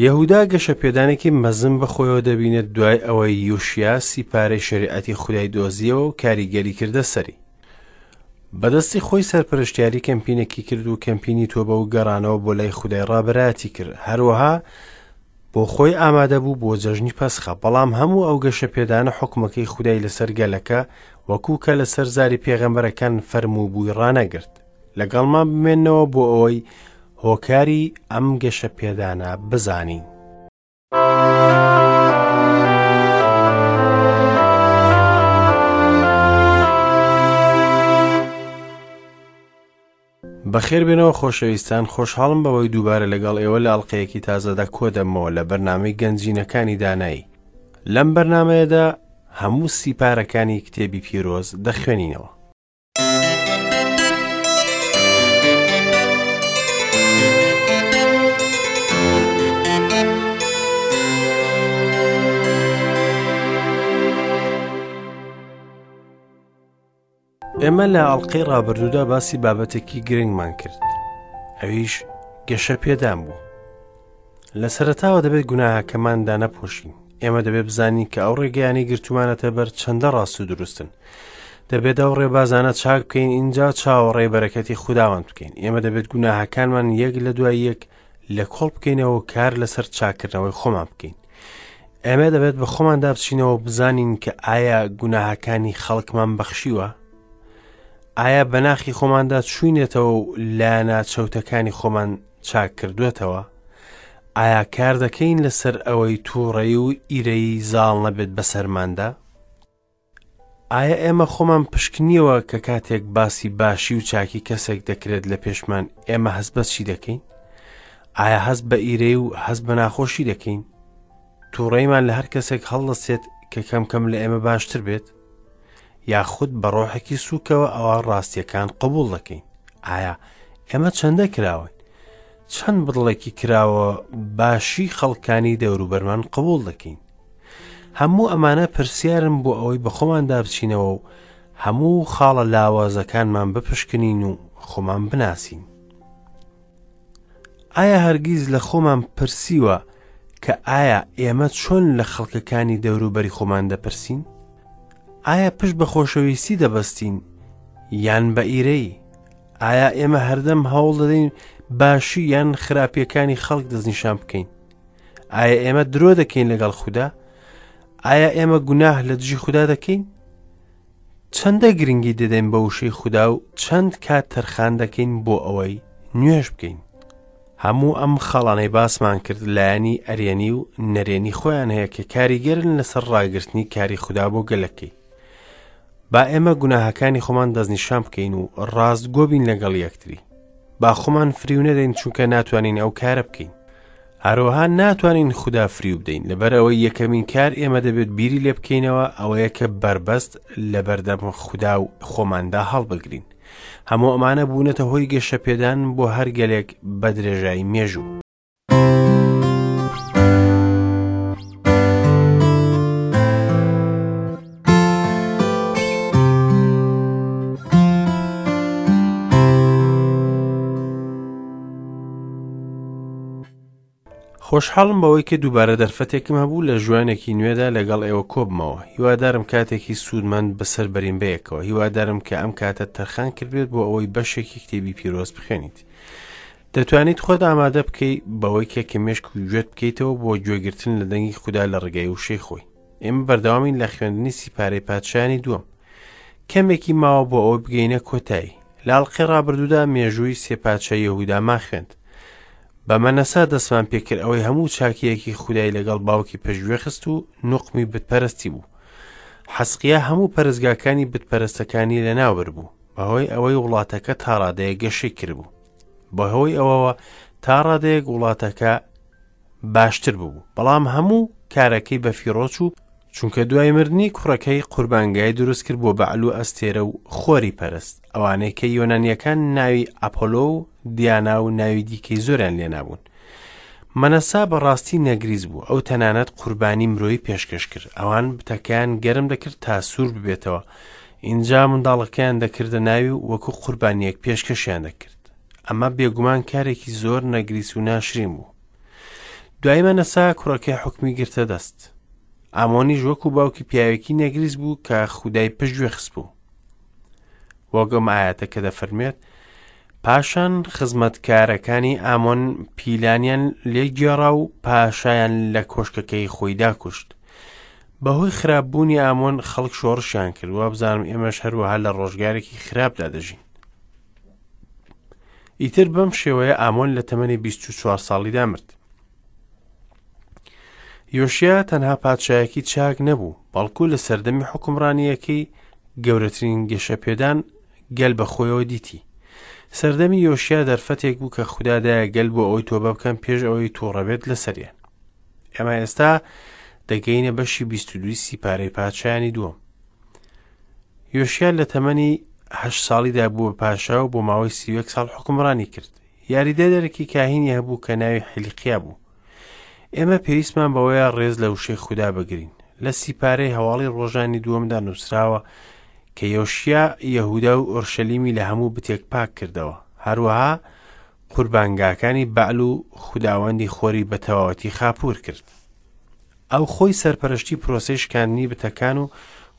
یەهودا گەشەپێدانێکی مەزن بەخۆیەوە دەبینێت دوای ئەوەی یوشیا سیپارەی شەریعەتی خودای دۆزیەوە و کاریگەری کردە سەری. بەدەستی خۆی سەرپەرشتیاری کەمپینێکی کرد و کەمپینی تۆبە و گەڕانەوە بۆ لای خودای ڕابەرایەتی کرد. هەروەها بۆ خۆی ئامادە بوو بۆ جەژنی پەسخە، بەڵام هەموو ئەو گەشەپێدانە حوکمەکەی خودای لەسەر گەلەکە وەکو کە لەسەر زاری پێغەمبەرەکان فەرمووبووی ڕانەگرت. لەگەڵمان بمێنەوە بۆ ئەوەی هۆکاری ئەم گەشەپێدانە بزانین. بەخێربێنەوە خۆشەویستان خۆشحاڵم بەوەی دووبارە لەگەڵ ئێوە لە ئەڵلقەیەکی تازەدا کۆدەمەوە لە بەرنامەی گەنجینەکانی دانایی لەم بەرنمەیەدا هەموو سیپارەکانی کتێبی پیرۆز دەخوێنینەوە. ئێمە لە ئەڵلقەی ڕابردوودا باسی بابەتێکی گرنگمان کرد ئەویش گەشە پێدان بوو لە سەرتاوە دەبێت گوناهەکەماندا نەپۆشین ئێمە دەبێت بزانین کە ئەو ڕێگەیانی گرتومانەتە بەر چەندە ڕاست و دروستن دەبێت ئەو ڕێبازانە چاک بکەین اینجا چاوەڕێی بەرەکەتی خوداوەند بکەین ئێمە دەبێت گوناهەکانمان یەک لە دوای یەک لە کۆڵ بکەینەوە و کار لەسەر چاکردنەوەی خۆمان بکەین ئێمە دەبێت بە خۆماندا بچینەوە بزانین کە ئایا گوناهەکانی خەڵکمان بەخشیوە ئایا بەناخی خۆماندا چوینێتەوە و لایەنە چەوتەکانی خۆمان چاک کردوێتەوە ئایا کار دەکەین لەسەر ئەوەی تووڕەی و ئیرەیی زاڵ نەبێت بەسەرماندا ئایا ئێمە خۆمان پشکنیەوە کە کاتێک باسی باشی و چاکی کەسێک دەکرێت لە پێشمان ئێمە هەست بە چی دەکەین؟ ئایا هەست بە ئیرەی و هەست بە ناخۆشی دەکەین؟ تووڕەیمان لە هەر کەسێک هەڵدەستێت کە کەم کەم لە ئێمە باشتر بێت؟ یاخود بە ڕۆحێکی سووکەوە ئەوە ڕاستیەکان قبوڵ دەکەین؟ ئایا ئێمە چەندە کراوین؟ چەند بڕڵێکی کراوە باشی خەڵکانی دەوروبەرمان قبوڵ دەکەین؟ هەموو ئەمانە پرسیارن بۆ ئەوەی بە خۆماندا بچینەوە و هەموو خاڵە لاوازەکانمان بپشکنین و خۆمان بناسین. ئایا هەرگیز لە خۆمان پرسیوە کە ئایا ئێمە چۆن لە خەڵکەکانی دەوروبەری خۆمان دەپرسین؟ ئایا پشت بە خۆشەویستی دەبەستین یان بە ئیرەی؟ ئایا ئێمە هەردەم هەوڵ دەدەین باشی یان خراپیەکانی خەڵک دەستنیشان بکەین؟ ئایا ئێمە درۆ دەکەین لەگەڵ خودا؟ ئایا ئێمە گوناه لە دژی خودا دەکەین؟ چەندە گرنگی دەدەین بە وشەی خودا و چەند کات تەرخان دەکەین بۆ ئەوەی نوێژ بکەین؟ هەموو ئەم خاڵانەی باسمان کرد لایەنی ئەرێنی و نەرێنی خۆیان هەیە کە کاریگەرن لەسەر ڕاگرتنی کاری خودا بۆ گەلەکەی. با ئێمە گوناهەکانی خۆمان دەستنیشان بکەین و ڕاستگۆ بین لەگەڵ یەکتری. با خۆمان فریو نەدەین چونکە ناتوانین ئەو کارە بکەین. هەروەها ناتوانین خودا فریو بدەین لەبەر ئەوەی یەکەمین کار ئێمە دەبێت بیری لێ بکەینەوە ئەوەیە کە بەربەست لەبەردەم خودا و خۆماندا هەڵبگرین. هەموو ئەمانە بوونەتە هۆی گەشەپێدان بۆ هەر گەلێک بە درێژایی مێژوو. خۆشحاڵم بەوەی کە دووبارە دەرفەتێکم هەبوو لە ژوانێکی نوێدا لەگەڵ ئێوە کۆبمەوە هیوادارم کاتێکی سوودمەند بەسەر بەرین بەیەکەوە هیوادارم کە ئەم کاتە تەرخان کردبێت بۆ ئەوەی بەشێکی کتێبی پیرۆز بخوێنیت دەتوانیت خۆت ئامادە بکەی بەوەی کە کە مێشک و گوێت بکەیتەوە بۆ گوێگرتن لە دەنگی خودا لە ڕێگای وشەی خۆی ئێمە بەردەوامین لە خوێندنی سیپارەی پادشایانی دووەم کەمێکی ماوە بۆ ئەوەی بگەینە کۆتایی لە ئەڵقەی ڕابردوودا مێژووی سێ پادشای یەهودامان خوێند بە مەنەسا دەستمان پێکرد ئەوەی هەموو چاکیەکی خودای لەگەڵ باوکی پشتگوێ خست و نوقمی بتپەرستی بوو حەسقیا هەموو پەرستگاکانی بتپەرستەکانی لەناوبرد بوو بەهۆی ئەوەی وڵاتەکە تاڕادەیە گەشەی کردبوو بەهۆی ئەوەوە تا ڕادەیەک وڵاتەکە باشتر ببوو بەڵام هەموو کارەکەی بە فیڕۆ چوو چونکە دوای مردنی کوڕەکەی قوربانگای دروست کرد بۆ بەعل و ئەستێرە و خۆری پەرست ئەوانەی کە یۆنانیەکان ناوی ئەپۆلۆ و دیانا و ناوی دیکەی زۆریان لێنابوون مەنەسا بەڕاستی نەگریس بوو ئەو تەنانەت قوربانی مرۆیی پێشکەش کرد ئەوان بتەکەیان گەرم دەکرد تا سوور ببێتەوە ئینجا منداڵەکەیان دەکردە ناوی و وەکو قوربانیەک پێشکەشیان دەکرد ئەمە بێگومان کارێکی زۆر نەگریس و ناشرین بوو. دوای مەنەسا کوڕەکەی حوکمی گرتە دەست. ئامۆنیش وەکو باوکی پیاوێکی نەگریس بوو کە خودای پشتگوێ خستبوو. وەک ئەم ئایەتە کە دەفەرموێت پاشان خزمەتکارەکانی ئامۆن پیلانیان لێ گێڕا و پاشایان لە کۆشکەکەی خۆیدا کوشت. بەهۆی خراپبوونی ئامۆن خەڵک شۆڕشیان کرد وابزانم ئێمەش هەروەها لە ڕۆژگارێکی خراپدا دەژین. ئیتر بەم شێوەیە ئامۆن لە تەمەنی 24 ساڵیدا مرد. یۆشیا تەنها پادشایەکی چاک نەبوو، بەڵکو لە سەردەمی حوکمڕانییەکەی گەورەترین گەشەپێدان گەل بە خۆیەوە دیتی. سەردەمی یۆشیا دەرفەتێک بوو کە خودا دایە گەل بۆ ئەوەی تۆبە بکەن پێش ئەوەی تووڕە بێت لەسەریان. ئێمە ئێستا دەگەینە بەشی 22 سیپارەی پادشایانی دووەم. یۆشیا لە تەمەنی هەشت ساڵیدا بووە پاشا و بۆ ماوەی 31 ساڵ حوکمڕانی کرد. یاریدەدەرێکی کاهینی هەبوو کە ناوی حیلقیا بوو. ئێمە پێویستمان بەوەیە ڕێز لە وشەی خودا بگرین. لە سیپارەی هەواڵی ڕۆژانی دووەمدا نووسراوە کە یۆشیا یەهودا و ئۆرشەلیمی لە هەموو بتێک پاک کردەوە. هەروەها قوربانگاکانی بەعل و خوداوەندی خۆری بە تەواوەتی خاپوور کرد. ئەو خۆی سەرپەرشتی پرۆسەی شکاندنی بتەکان و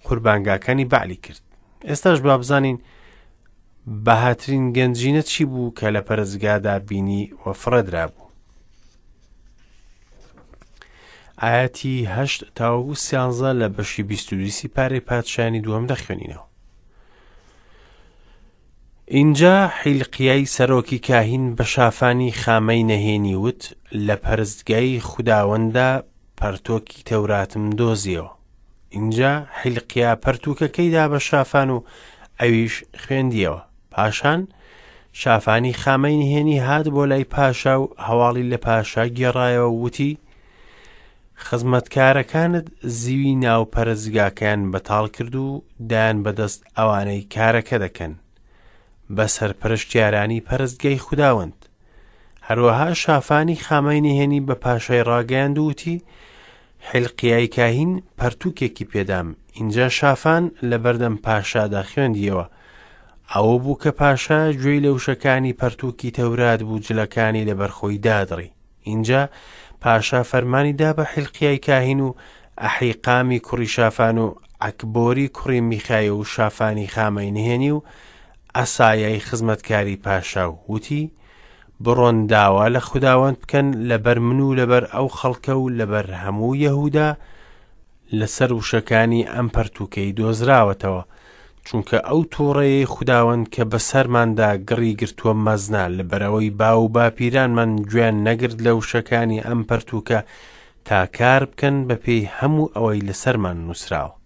قوربانگاکانی بەعلی کرد. ئێستاش با بزانین بەهاترین گەنجینە چی بوو کە لە پەرستگادا بینی و فڕێدرابوو. ئاەتی هەشت تاوەکو سیانزە لە بەشی بیست و دووی پارەی پادشایانی دووەم دەخوێنینەوە. ئینجا حیلقیای سەرۆکی کاهین بە شافانی خامەی نەهێنی وت، لە پەرستگای خوداوەنددا پەرتۆکی تەوراتم دۆزیەوە. ئینجا حیلقیا پەرتووکەکەی دا بە شافان و ئەویش خوێندیەوە. پاشان شافانی خامەی نهێنی هات بۆ لای پاشا و هەواڵی لە پاشا گێڕایەوە و وتی، خزمەتکارەکانت زیوی ناو پەرستگاکەیان بەتاڵ کرد و دایان بەدەست ئەوانەی کارەکە دەکەن، بە سەرپەرشتیارانی پەرستگای خوداوەند. هەروەها شافانی خامەی نهێنی بە پاشای ڕاگەیاند و وتی، حیلقیای کاهین پەرتووکێکی پێدام. ئینجا شافان لەبەردەم پاشادا خوێندیەوە. ئەوە بوو کە پاشا گوێی لە وشەکانی پەرتووکی تەورات بوو جلەکانی لەبەر خۆی دادڕی. ئینجا پاشا فەرمانی دا بە حیلقیای کاهین و ئەحیقامی کوڕی شافان و عەکبۆری کوڕی میخایە و شافانی خامەی نهێنی و عەسایای خزمەتکاری پاشا و وتی، بڕۆن داوا لە خوداوەند بکەن لەبەر من و لەبەر ئەو خەڵکە و لەبەر هەموو یەهودا لەسەر وشەکانی ئەم پەرتووکەی دۆزراوەتەوە، چونکە ئەو تووڕەیەی خوداوەند کە بەسەرماندا گڕی گرتووە مەزنە، لەبەرئەوەی باو و باپیرانمان گوێیان نەگرت لە وشەکانی ئەم پەرتووکە تا کار بکەن بەپێی هەموو ئەوەی لەسەرمان نووسراوە.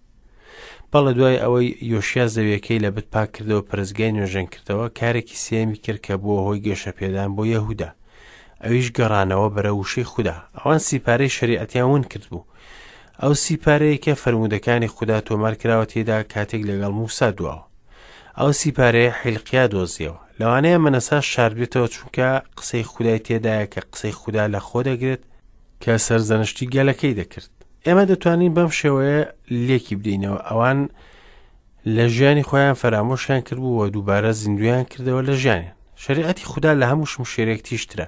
بەڵێ دوای ئەوەی یۆشیا زەویەکەی لە بت پاک کردەوە پەرستگای نۆژەن کردەوە کارێکی سێیەمی کرد کە بووە هۆی گەشەپێدان بۆ یەهودا ئەویش گەڕانەوە بەرە وشەی خودا ئەوان سیپارەی شەریعەتیان ون کردبوو ئەو سیپارەیە کە فەرموودەکانی خودا تۆمار کراوە تێدا کاتێک لەگەڵ موسا دواوە ئەو سیپارەیە حیلقیا دۆزیەوە لەوانەیە مەنەسا شاردبێتەوە چونکە قسەی خودای تێدایە کە قسەی خودا لە خۆ دەگرێت کە سەرزەنشتی گەلەکەی دەکرد ئێمە دەتوانین بەم شێوەیە لێکی بدەینەوە ئەوان لە ژیانی خۆیان فەرامۆشیان کردبوو و دووبارە زیندویان کردەوە لە ژیانیان شریعەتی خودا لە هەموو شمشێرێک تیژترە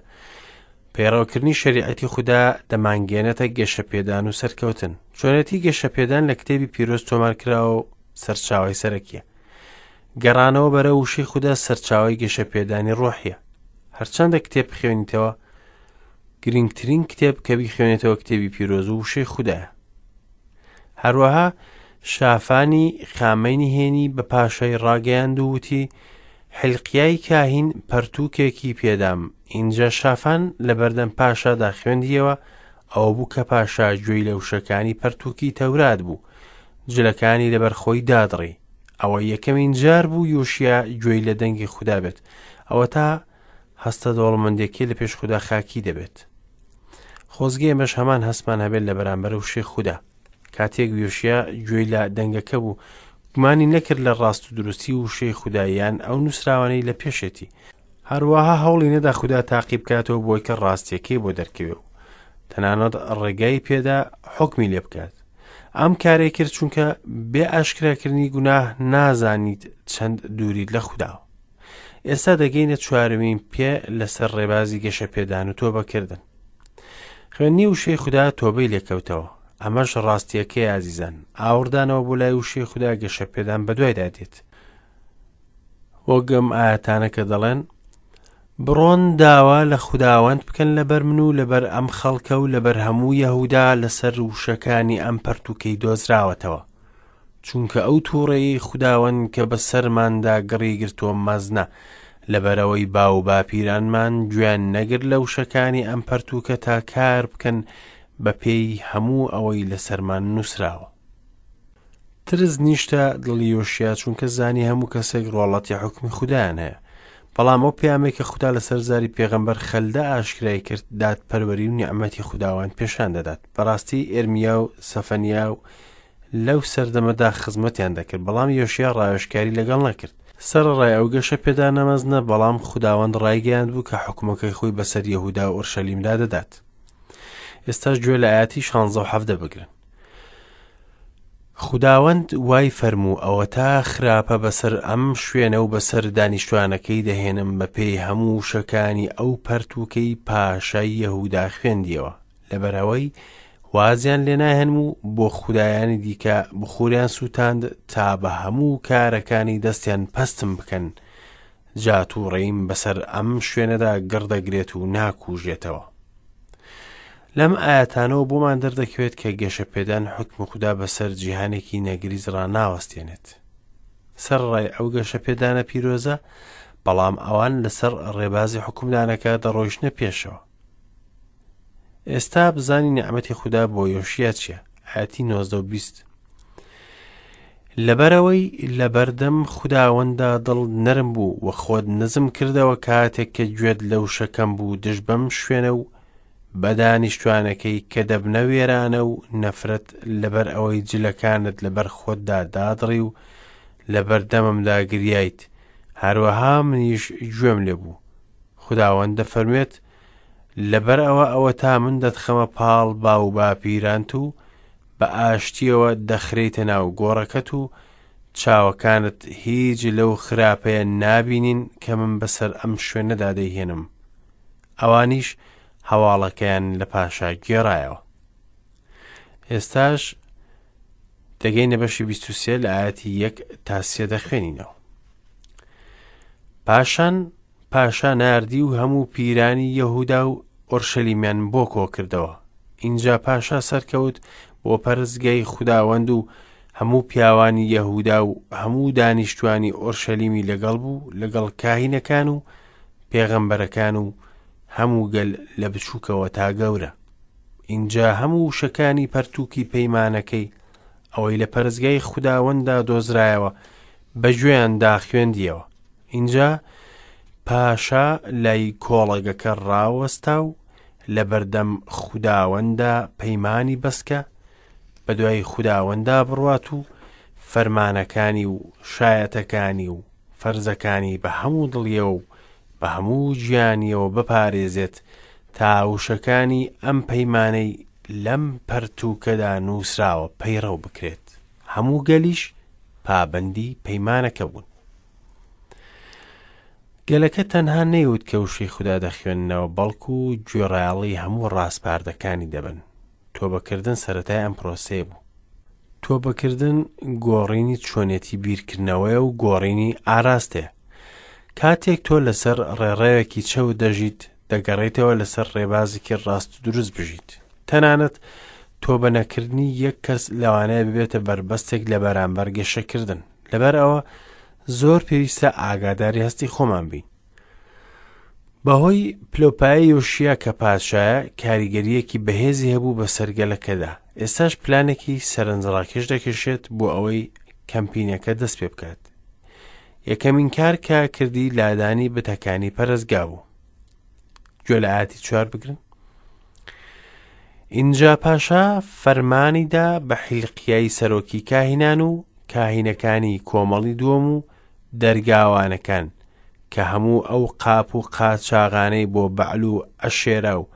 پەیڕەوکردنی شریعەتی خودا دەمانگەێنێتە گەشەپێدان و سەرکەوتن چۆنێتی گەشەپێدان لە کتێبی پیرۆز تۆمارکراوە و سەرچاوی سەرەکیە گەڕانەوە بەرە وشەی خودا سەرچاوی گەشەپێدانی ڕۆحیە هەرچەندە کتێب بخوێنیتەوە گرنگترین کتێب کە بیخوێنێتەوە کتێبی پیرۆز و وشەی خودایە. هەروەها شافانی خامەی نهێنی بە پاشای ڕاگەیاند و وتی، حیلقیای کاهین پەرتووکێکی پێدام. ئینجا شافان لەبەردەم پاشادا خوێندیەوە، ئەوە بوو کە پاشا گوێی لە وشەکانی پەرتووکی تەورات بوو، جلەکانی لەبەر خۆی دادڕی. ئەوە یەکەمین جار بوو یۆشیا گوێی لە دەنگی خودا بێت. ئەوەتا هەستە دەوڵەمەندێکەی لە پێش خودا خاکی دەبێت. خۆزگە ئێمەش هەمان هەستمان هەبێت لە بەرامبەر وشەی خودا. کاتێک یۆشیا گوێی لە دەنگەکە بوو، گومانی نەکرد لە ڕاست و دروستی وشەی خودا یان ئەو نووسراوانەی لە پێشێتی. هەروەها هەوڵی نەدا خودا تاقی بکاتەوە بۆی کە ڕاستیەکەی بۆ دەرکەوێ و تەنانەت ڕێگای پێدا حوکمی لێ بکات. ئەم کارەی کرد چونکە بێ ئاشکراکردنی گوناه نازانیت چەند دووریت لە خوداوە. ئێستا دەگەینە چوارەمین پێ لەسەر ڕێبازی گەشەپێدان و تۆبەکردن. خوێندنی وشەی خودا تۆبەی لێکەوتەوە. ئەمەش ڕاستییەکەیە ئازیزان. ئاوڕدانەوە بۆ لای وشەی خودا گەشەپێدان بەدوایدا دێت. وەک ئەم ئایەتانە کە دەڵێن بڕۆن داوا لە خوداوەند بکەن لەبەر من و لەبەر ئەم خەڵکە و لەبەر هەموو یەهودا لەسەر وشەکانی ئەم پەرتوکەی دۆزراوەتەوە چونکە ئەو تووڕەیی خوداوەند کە بەسەرماندا گڕی گرتووە مەزنە لەبەرەوەی باو باپیرانمان گوێیان نەگرت لە وشەکانی ئەم پەرتوکە تا کار بکەن بە پێی هەموو ئەوەی لەسەرمان نووسراوە. ترس نیشتە دڵی یۆشیا چونکە زانی هەموو کەسێک ڕواڵەتی حوکمی خودایان هەیە. بەڵام ئەو پەیامەی کە خودا لەسەر زاری پێغەمبەر خەلدە ئاشکرای کرد دادپەروەری و نیعمەتی خوداوەند پێشان دەدات. بەڕاستی ئێرمیا و سەفەنیا و لەو سەردەمەدا خزمەتیان دەکرد، بەڵام یۆشیا ڕاوێژکاری لەگەڵ نەکرد. سەرەڕای ئەو گەشەپێدانە مەزنە، بەڵام خوداوەند ڕایگەیاندبوو کە حوکمەکەی خۆی بەسەر یەهودا و ئۆرشەلیمدا دەدات. ئێستاش گوێ لە ئایەتی شانزە و حەڤدە بگرن. خوداوەند وای فەرموو ئەوەتا خراپە بەسەر ئەم شوێنە و بەسەر دانیشتوانەکەی دەهێنم بەپێی هەموو وشەکانی ئەو پەرتووکەی پاشای یەهودا خوێندیەوە لەبەرئەوەی وازیان لێ ناهێنم و بۆ خودایانی دیکە بخوریان سووتاند تا بە هەموو کارەکانی دەستیان پەستم بکەن جا تووڕەییم بەسەر ئەم شوێنەدا گڕ دەگرێت و ناکوژێتەوە. لەم ئایەتانەوە بۆمان دەردەکەوێت کە گەشەپێدان حوکمی خودا بەسەر جیهانێکی نەگریس ڕاناوەستێنێت. سەرەڕای ئەو گەشەپێدانە پیرۆزە، بەڵام ئەوان لەسەر ڕێبازی حوکمدانەکە دەڕۆیشتنە پێشەوە. ئێستا بزانی نیعمەتی خودا بۆ یۆشیا چییە؟ ئایەتی 19 و 20. لەبەرئەوەی لەبەردەم خوداوەنددا دڵت نەرم بوو و خۆت نزم کردەوە کاتێک کە گوێت لە وشەکەم بوو دژ بەم شوێنە و بە دانیشتوانەکەی کە دەبنە وێرانە و نەفرەت لەبەر ئەوەی جلەکانت لەبەر خۆتدا دادڕی و لەبەردەممدا گریایت هەروەها منیش گوێم لێ بوو خوداوەند دەفەرموێت لەبەر ئەوە ئەوەتا من دەتخەمە پاڵ باوباپیرانت و بە ئاشتییەوە دەخرێیتە ناو گۆڕەکەت و چاوەکانت هیچ لەو خراپەیە نابینین کە من بەسەر ئەم شوێنەدا دەیهێنم. ئەوانیش هەواڵەکەیان لە پاشا گێڕایەوە. ئێستاش دەگەینە بەشی 23 لە ئاەتی یەک تا سێ دەخوێنینەوە. پاشان پاشا ناردی و هەموو پیرانی یەهودا و ئۆرشەلیمیان بۆ کۆکردەوە. ئینجا پاشا سەرکەوت بۆ پەرستگای خوداوەند و هەموو پیاوانی یەهودا و هەموو دانیشتوانی ئۆرشەلیمی لەگەڵ بوو، لەگەڵ کاهینەکان و پێغەمبەرەکان و هەموو گەل لە بچووکەوە تا گەورە. ئینجا هەموو وشەکانی پەرتووکی پەیمانەکەی، ئەوەی لە پەرستگای خوداوەنددا دۆزرایەوە، بە گوێیاندا خوێندییەوە. ئینجا پاشا لای کۆڵەگەکە ڕاوەستا و لەبەردەم خوداوەندا پەیمانی بەست کە بەدوای خوداوەندا بڕوات و فەرمانەکانی و شایەتەکانی و فەرزەکانی بە هەموو دڵیەوە و بە هەموو گیانیەوە بپارێزێت تا وشەکانی ئەم پەیمانەی لەم پەرتووکەدا نووسراوە پەیڕەو بکرێت. هەموو گەلیش پابەندی پەیمانەکە بوون. گەلەکە تەنها نەیوت کە وشەی خودا دەخوێننەوە، بەڵکو گوێڕایەڵی هەموو ڕاسپاردەکانی دەبن. تۆبەکردن سەرەتای ئەم پرۆسەیە بوو. تۆبەکردن گۆڕینی چۆنێتی بیرکردنەوەیە و گۆڕینی ئاراستەیە. کاتێک تۆ لەسەر ڕێڕەوێکی چەوت دەژیت، دەگەڕێیتەوە لەسەر ڕێبازێکی ڕاست و دروست بژیت. تەنانەت تۆبە نەکردنی یەک کەس لەوانەیە ببێتە بەربەستێک لە بەرامبەر گەشەکردن. لەبەر ئەوە زۆر پێویستە ئاگاداری هەستی خۆمان بین. بەهۆی پلۆپایە یۆشیا کە پادشایە کاریگەریەکی بەهێزی هەبوو بەسەر گەلەکەدا. ئێستاش پلانێکی سەرنجڕاکێش دەکێشێت بۆ ئەوەی کەمپینەکە دەست پێ بکات. یەکەمین کار کە کردی لادانی بتەکانی پەرستگا بوو. گوێ لە ئاەتی چوار بگرن. ئینجا پاشا فەرمانی دا بە حیلقیای سەرۆکی کاهینان و کاهینەکانی کۆمەڵی دووەم و دەرگاوانەکان کە هەموو ئەو قاپ و قاچاغانەی بۆ بەعل و ئەشێرا و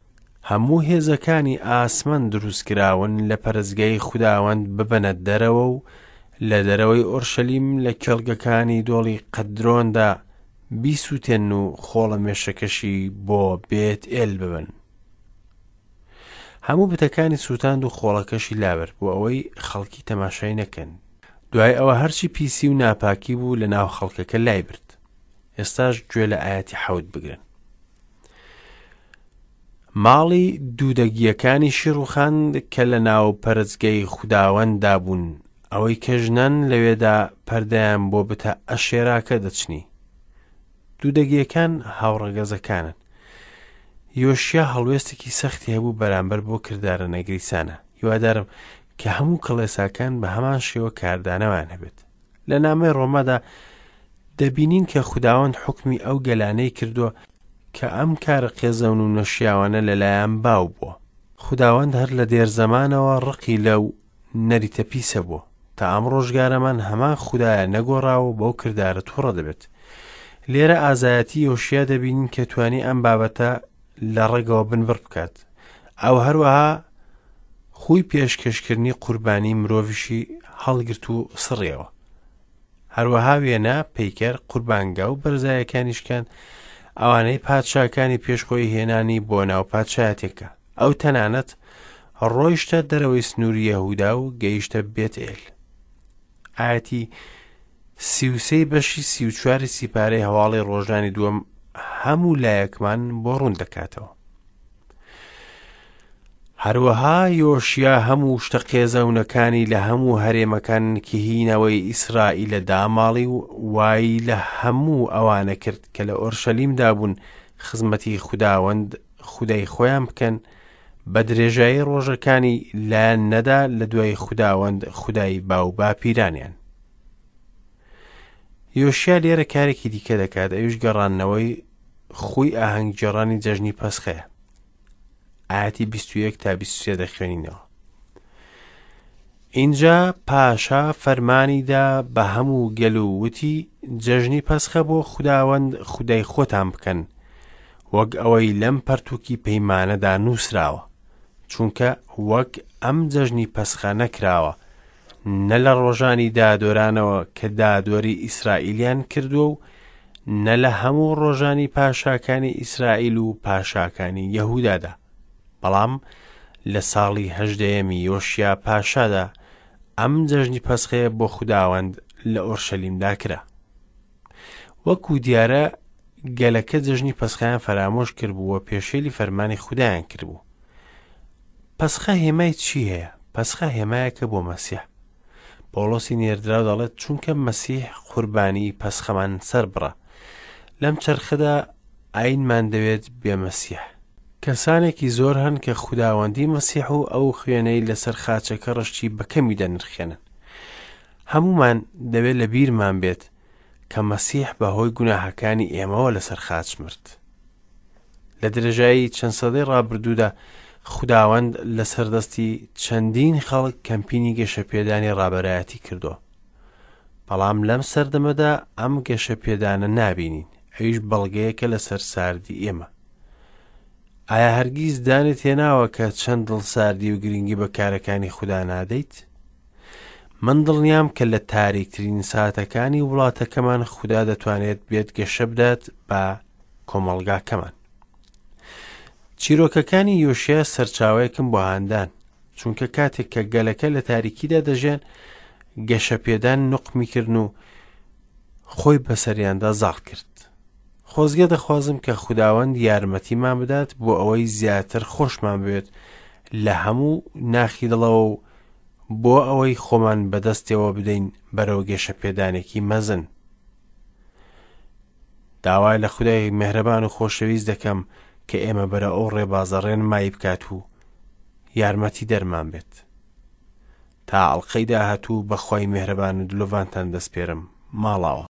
هەموو هێزەکانی ئاسمان دروستکراون لە پەرستگای خوداوەند ببەنە دەرەوە و لە دەرەوەی ئۆرشەلیم لە کێڵگەکانی دۆڵی قەدرۆندا بیسووتێنن و خۆڵەمێشەکەشی بۆ بێت ئێل ببەن. هەموو بتەکانی سووتاند و خۆڵەکەشی لابرد بۆ ئەوەی خەڵکی تەماشای نەکەن. دوای ئەوە هەرچی پیسی و ناپاکی بوو لە ناو خەڵکەکە لای برد. ئێستاش گوێ لە ئایەتی حەوت بگرن. ماڵی دوودەگییەکانیشی ڕووخاند کە لە ناو پەرستگەی خوداوەنددا بوون، ئەوەی کە ژنان لەوێدا پەردەیان بۆ بتە ئەشێراکە دەچنی. دوودەگییەکان هاوڕەگەزەکانن. یۆشیا هەڵوێستێکی سەختی هەبوو بەرامبەر بۆ کردارە نەگریسانە. هیوادارم کە هەموو کڵێساکان بە هەمان شێوە کاردانەوەیان هەبێت. لە نامەی ڕۆمادا دەبینین کە خوداوەند حوکمی ئەو گەلانەی کردووە کە ئەم کارە قێزەون و نەشیاوانە لەلایان باو بووە. خوداوەند هەر لە دێرزەمانەوە ڕقی لەو نەریتە پیسە بووە. تا ئەم ڕۆژگارەمان هەمان خودایە نەگۆڕاوە و بەو کردارە تووڕە دەبێت. لێرە ئازایەتی یۆشیا دەبینین کە توانی ئەم بابەتە لە ڕەگەوە بنبڕ بکات. ئەو هەروەها خووی پێشکەشکردنی قوربانی مرۆڤیشی هەڵگرت و سڕیەوە. هەروەها وێنە، پەیکەر، قوربانگا و بەرزایەکانی شکاند، ئەوانەی پادشاکانی پێش خۆی هێنانی بۆ ناو پادشایەتێکە. ئەو تەنانەت ڕۆیشتە دەرەوەی سنووری یەهودا و گەیشتە بێتئێل. ئایەتی 33 بەشی 34 سیپارەی هەواڵی ڕۆژانی دووەم هەموو لایەکمان بۆ ڕوون دەکاتەوە. هەروەها یۆشیا هەموو شتە قێزەونەکانی لە هەموو هەرێمەکان کە هی نەوەی ئیسرائیلە داماڵی و وای لە هەموو ئەوانە کرد کە لە ئۆرشەلیمدا بوون خزمەتی خوداوەند خودای خۆیان بکەن، بە درێژایی ڕۆژەکانی لایان نەدا لە دوای خوداوەند خودای باوباپیرانیان. یۆشیا لێرە کارێکی دیکە دەکات، ئەویش گەڕاندنەوەی خووی ئاهەنگگێڕانی جەژنی پەسخەیە. ئاەتی 21 تا 23 دەخوێنینەوە. ئینجا پاشا فەرمانی دا بە هەموو گەل و وتی، جەژنی پەسخە بۆ خوداوەند خودای خۆتان بکەن، وەک ئەوەی لەم پەرتووکی پەیمانەدا نووسراوە، چونکە وەک ئەم جەژنی پەسخە نەکراوە، نە لە ڕۆژانی دادوەرانەوە کە دادوەری ئیسرائیلیان کردووە و نە لە هەموو ڕۆژانی پاشاکانی ئیسرائیل و پاشاکانی یەهودادا. بەڵام لە ساڵی هەژدەیەمی یۆشیا پاشادا ئەم جەژنی پەسخەیە بۆ خوداوەند لە ئۆرشەلیمدا کرا. وەکو دیارە گەلەکە جەژنی پەسخەیان فەرامۆش کردبوو و پێشێلی فەرمانی خودایان کردبوو. پەسخە هێمای چی هەیە؟ پەسخە هێمایەکە بۆ مەسیح. پۆڵۆسی نێردراو دەڵێت چونکە مەسیح قوربانی پەسخەمان سەربڕە. لەم چەرخەدا ئاینمان دەوێت بێ مەسیح. کەسانێکی زۆر هەن کە خوداوەندی مەسیح و ئەو خوێنەی لەسەر خاچەکە ڕشتی بە کەمی دەنرخێنن. هەموومان دەبێت لە بیرمان بێت کە مەسیح بە هۆی گوناهەکانی ئێمەوە لەسەر خاچ مرد. لە درێژایی چەند سەدەی ڕابردوودا خوداوەند لەسەر دەستی چەندین خەڵک کەمپینی گەشەپێدانی ڕابەرایەتی کردووە. بەڵام لەم سەردەمەدا ئەم گەشەپێدانە نابینین، ئەویش بەڵگەیەکە لەسەر ساردی ئێمە. ئایا هەرگیز دانت هێناوە کە چەند دڵساردی و گرنگی بە کارەکانی خودا نادەیت؟ من دڵنیام کە لە تاریکترین ساتەکانی وڵاتەکەمان خودا دەتوانێت بێت گەشە بدات بە کۆمەڵگاکەمان. چیرۆکەکانی یۆشیا سەرچاوەیەکم بۆ هاندان، چونکە کاتێک کە گەلەکە لە تاریکیدا دەژیان، گەشەپێدان نوقمی کردن و خۆی بەسەریاندا زاڵ کرد. خۆزگە دەخوازم کە خوداوەند یارمەتیمان بدات بۆ ئەوەی زیاتر خۆشمان بوێت لە هەموو ناخی دڵەوە و بۆ ئەوەی خۆمان بەدەستەوە بدەین بەرەو گەشەپێدانێکی مەزن. داوا لە خودای مێهرەبان و خۆشەویست دەکەم کە ئێمە بەرە ئەو ڕێبازە ڕێنمایی بکات و یارمەتی دەرمان بێت. تا ئەڵقەی داهاتوو بە خوای مێهرەبان و دلۆڤانتان دەسپێرم. ماڵاوا.